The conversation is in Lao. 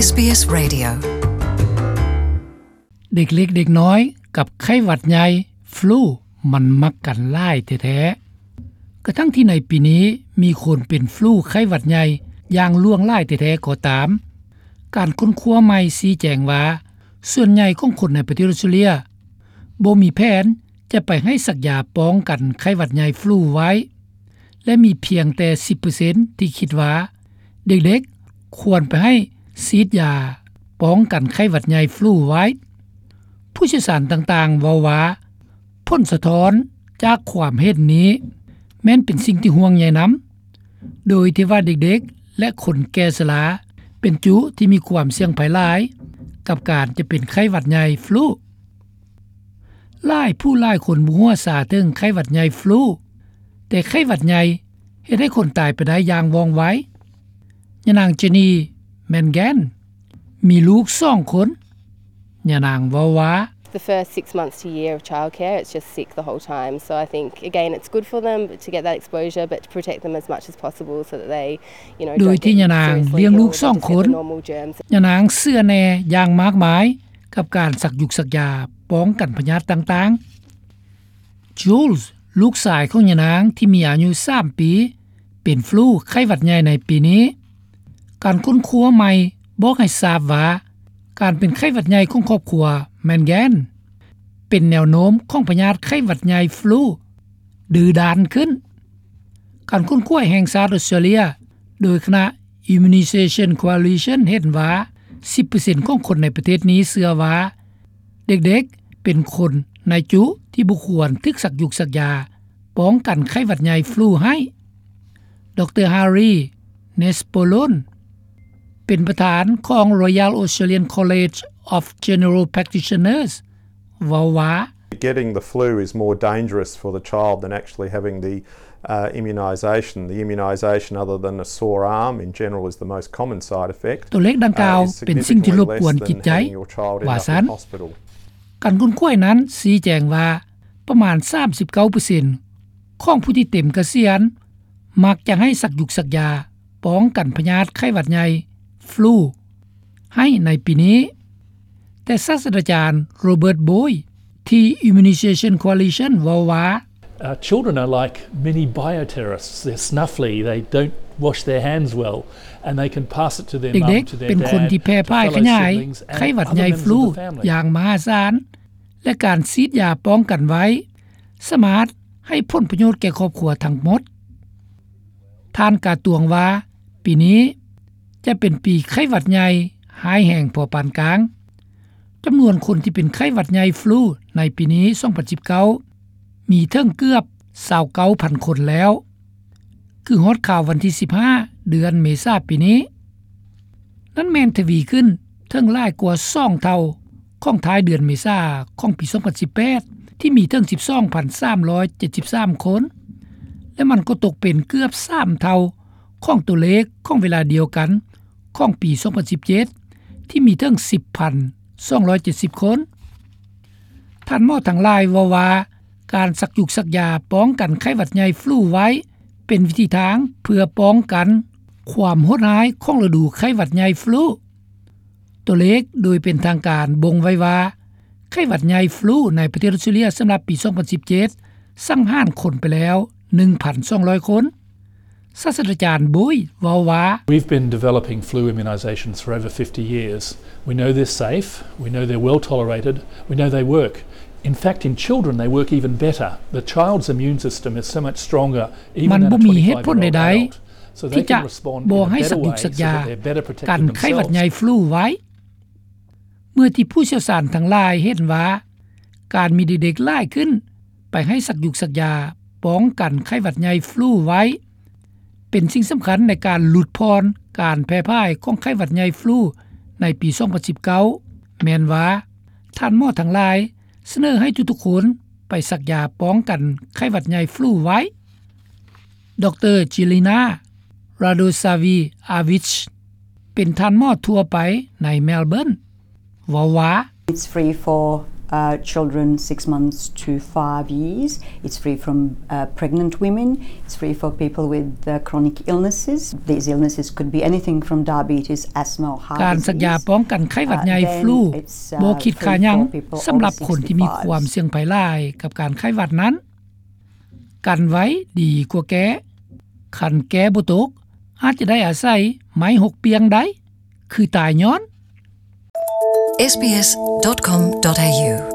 ເດັກເລັກເດັກນ້ອຍກັບໄຂ້ຫວັດໃຫຍ່ຟລູ ມັນມັກກັນຫຼາຍແທ້ໆ ກະທັ່ງທີ່ໃນປີນີ້ມີຄົນເປັນຟລູໄຂ້ຫວັດໃຫຍ່ຢ່າງຫຼວງຫຼາຍແທ້ໆກໍຕາມ, ການຄົ້ນຄວ້າໃໝ່ຊີ້ແຈງວ່າ ສ່ວນໃຫຍ່ຂອງຄົນໃນປະເທດອອສເຕຣເລຍບໍ່ມີແຜນຈະໄປໃຫ້ສັກຢາປ້ອງກັນໄຂ້ຫວັດໃຫຍ່ຟລູໄວ້ ແລະ ມີພຽງແຕ່ສິບເປີເຊັນທີ່ຄິດວ່າເດັກໆຄວນໄປໃຫ້ສີດຢາປ້ອງກັນໄຂ້ຫວັດໃຫຍ່ຟລູໄວ້. ຜູ້ຊ່ຽວຊານຕ່າງໆເວົ້າວ່າ ຜົນສະທ້ອນຈາກຄວາມເຫັນນີ້ແມ່ນເປັນສິ່ງທີ່ຫ່ວງໃຍນຳ, ໂດຍທີ່ວ່າເດັກໆ ແລະ ຄົນແກ່ຊະລາເປັນຈຸທີ່ມີຄວາມສ່ຽງໄພຫຼາຍກັບການຈະເປັນໄຂ້ຫວັດໃຫຍ່ຟລູ. ຫຼາຍຜູ້ຫຼາຍຄົນບໍ່ຮູ້ຊາເຖິງໄຂ້ຫວັດໃຫຍ່ຟລູ, ແຕ່ໄຂ້ຫວັດໃຫຍ່ເຮັດໃຫ້ຄົນຕາຍໄປໄດ້ຢ່າງວ່ອງໄວ. ຍານາງ Jenny Mangan ມີລູກສອງຄົນ. ຍານາງເວົ້າວ່າ The first six months to a year of childcare, it's just sick the whole time. So I think, again, it's good for them to get that exposure, but to protect them as much as possible so that they, you know, ໂດຍທີ່ຍານາງລ້ຽງລູກສອງຄົນ, ຍານາງເຊື່ອແນ່ຢ່າງມາກມາຍ ກັບການສັກຢູກສັກຢາປ້ອງກັນພະຍາດຕ່າງໆ. Jules ລູກຊາຍຂອງຍານາງທີ່ມີອາຍຸສາມປີ ເປັນຟລູໄຂ້ຫວັດໃຫຍ່ໃນປີນີ້. ການຄົ້ນຄວ້າໃໝ່ບອກໃຫ້ຊາບວ່າ ການເປັນໄຂ້ຫວັດໃຫຍ່ຂອງຄອບຄົວ Mangan ເປັນແນວໂນ້ມຂອງພະຍາດໄຂ້ຫວັດໃຫຍ່ຟລູດື້ດ້ານຂຶ້ນ. ການຄົ້ນຄວ້າແຫ່ງຊາດອອສເຕຣເລຍ ໂດຍຄະນະ Immunization Coalition ເຫັນວ່າ ສິບເປີເຊັນຂອງຄົນໃນປະເທດນີ້ເຊື່ອວ່າ ເດັກໆເປັນຄົນໃນຈຸທີ່ບໍ່ຄວນຖືກສັກຢູກສັກຢາປ້ອງກັນໄຂ້ຫວັດໃຫຍ່ຟລູໃຫ້. ດຣ. Harry Nespolon ເປັນປະທານຂອງ Royal Australian College of General Practitioners ເວົ້າວ່າ Getting the flu is more dangerous for the child than actually having the, uh, immunisation. The immunisation, other than a sore arm, in general is the most common side effect. ຕົວເລກດັ່ງກ່າວເປັນສິ່ງທີ່ລົບກວນຈິດໃຈ ວ່າຊັ້ນ. ການຄົ້ນຄວ້ານັ້ນຊີ້ແຈງວ່າ ປະມານສາມສິບເກົ້າເປີເຊັນຂອງຜູ້ທີ່ເຕັມກະສຽນ ມັກຈະໃຫ້ສັກຢູກສັກຢາປ້ອງກັນພະຍາດໄຂ້ຫວັດໃຫຍ່ຟລູໃຫ້ໃນປີນີ້. ແຕ່ສາດສະດາຈານ Robert Boyd ທີ່ Immunization Coalition ເວົ້າວ່າ Uh, children are like mini bioterrorists. They're snuffly. They don't wash their hands well, and they can pass it to their mum, to their dad, to fellow siblings, and other members of the family. ເດັກໆເປັນຄົນທີ່ແຜ່ພາຍຂະຫຍາຍໄຂ້ຫວັດໃຫຍ່ຟລູຢ່າງມະຫາສານ ແລະ ການສີດຢາປ້ອງກັນໄວ້ ສາມາດໃຫ້ຜົນປະໂຫຍດແກ່ຄອບຄົວທັງໝົດ. ທ່ານກາຕວງວ່າ ປີນີ້ຈະເປັນປີໄຂ້ຫວັດໃຫຍ່ຮ້າຍແຮງພໍປານກາງ. ຈຳນວນຄົນທີ່ເປັນໄຂ້ຫວັດໃຫຍ່ຟລູໃນປີນີ້ ສອງພັນສິບເກົ້າ ມີເຖິງເກືອບຊາວເກົ້າພັນຄົນແລ້ວ ຄືຮອດຄາວວັນທີສິບຫ້າ ເດືອນເມສາປີນີ້. ນັ້ນແມ່ນທະວີຂຶ້ນເຖິງຫຼາຍກວ່າສອງເທົ່າຂອງທ້າຍເດືອນເມສາຂອງປີສອງພັນສິບແປດ ທີ່ມີເຖິງສິບສອງພັນສາມຮ້ອຍເຈັດສິບສາມຄົນ ແລະ ມັນກໍຕົກເປັນເກືອບສາມເທົ່າຂອງຕົວເລກຂອງເວລາດຽວກັນຂອງປີສອງພັນສິບເຈັດ ທີ່ມີເຖິງສິບພັນສອງຮ້ອຍເຈັດສິບຄົນ. ທ່ານໝໍທັງຫຼາຍເວົ້າວ່າ ການສັກຢູກສັກຢາປ້ອງກັນໄຂ້ຫວັດໃຫຍ່ຟລູໄວ້ ເປັນວິທີທາງເພື່ອປ້ອງກັນຄວາມໂຫດຮ້າຍຂອງລະດູໄຂ້ຫວັດໃຫຍ່ຟລູ. ຕົວເລກໂດຍເປັນທາງການບົ່ງໄວ້ວ່າ ໄຂ້ຫວັດໃຫຍ່ຟລູໃນປະເທດອອສເຕຣເລຍສຳລັບປີສອງພັນສິບເຈັດ ສັງຫານຄົນໄປແລ້ວໜຶ່ງພັນສອງຮ້ອຍຄົນ. ສາດສະດາຈານ Boyd ເວົ້າວ່າ We've been developing flu immunisations for over fifty years. We know they're safe. We know they're well tolerated. We know they work. In fact, in children, they work even better. The child's immune system is so much stronger, even than a twenty-five-year-old adult. ມັນບໍ່ມີເຫດຜົນໃດໆ ທີ່ຈະບໍ່ໃຫ້ສັກຢູກສັກຢາກັນໄຂ້ຫວັດໃຫຍ່ຟລູໄວ້. ເມື່ອທີ່ຜູ້ຊ່ຽວຊານທັງຫຼາຍເຫັນວ່າ ການມີເດັກໆຫຼາຍຂຶ້ນໄປໃຫ້ສັກຢູກສັກຢາປ້ອງກັນໄຂ້ຫວັດໃຫຍ່ຟລູໄວ້ ເປັນສິ່ງສຳຄັນໃນການຫຼຸດຜ່ອນການແຜ່ພາຍຂອງໄຂ້ຫວັດໃຫຍ່ຟລູໃນປີສອງພັນສິບເກົ້າ ແມ່ນວ່າ ທ່ານໝໍທັງຫຼາຍສະເໜີໃຫ້ທຸກໆຄົນໄປສັກຢາປ້ອງກັນໄຂ້ຫວັດໃຫຍ່ຟລູໄວ້. ດຣ. Jelena Radosavi-Avic ເປັນທ່ານໝໍທົ່ວໄປໃນ Melbourne ເວົ້າວ່າ It's free for uh, children six months to five years. It's free from uh, pregnant women. It's free for people with uh, chronic illnesses. These illnesses could be anything from diabetes, asthma, or heart ການສັກຢາ disease. ປ້ອງກັນໄຂ້ຫວັດໃຫຍ່ uh, then ຟລູ it's, uh, ບໍ່ຄິດຄ່າຫຍັງ free for people ສຳລັບຄົນທີ່ມີຄວາມສ່ຽງໄພຫຼາຍກັບການໄຂ້ຫວັດນັ້ນ ກັນໄວ້ດີກວ່າແກ້ ຄັນແກ້ບໍ່ຕົກ ອາດຈະໄດ້ອາໄສໄມ້ຫົກປ່ຽງໄດ້ ຄືຕາຍຍ້ອນ SBS dot com dot au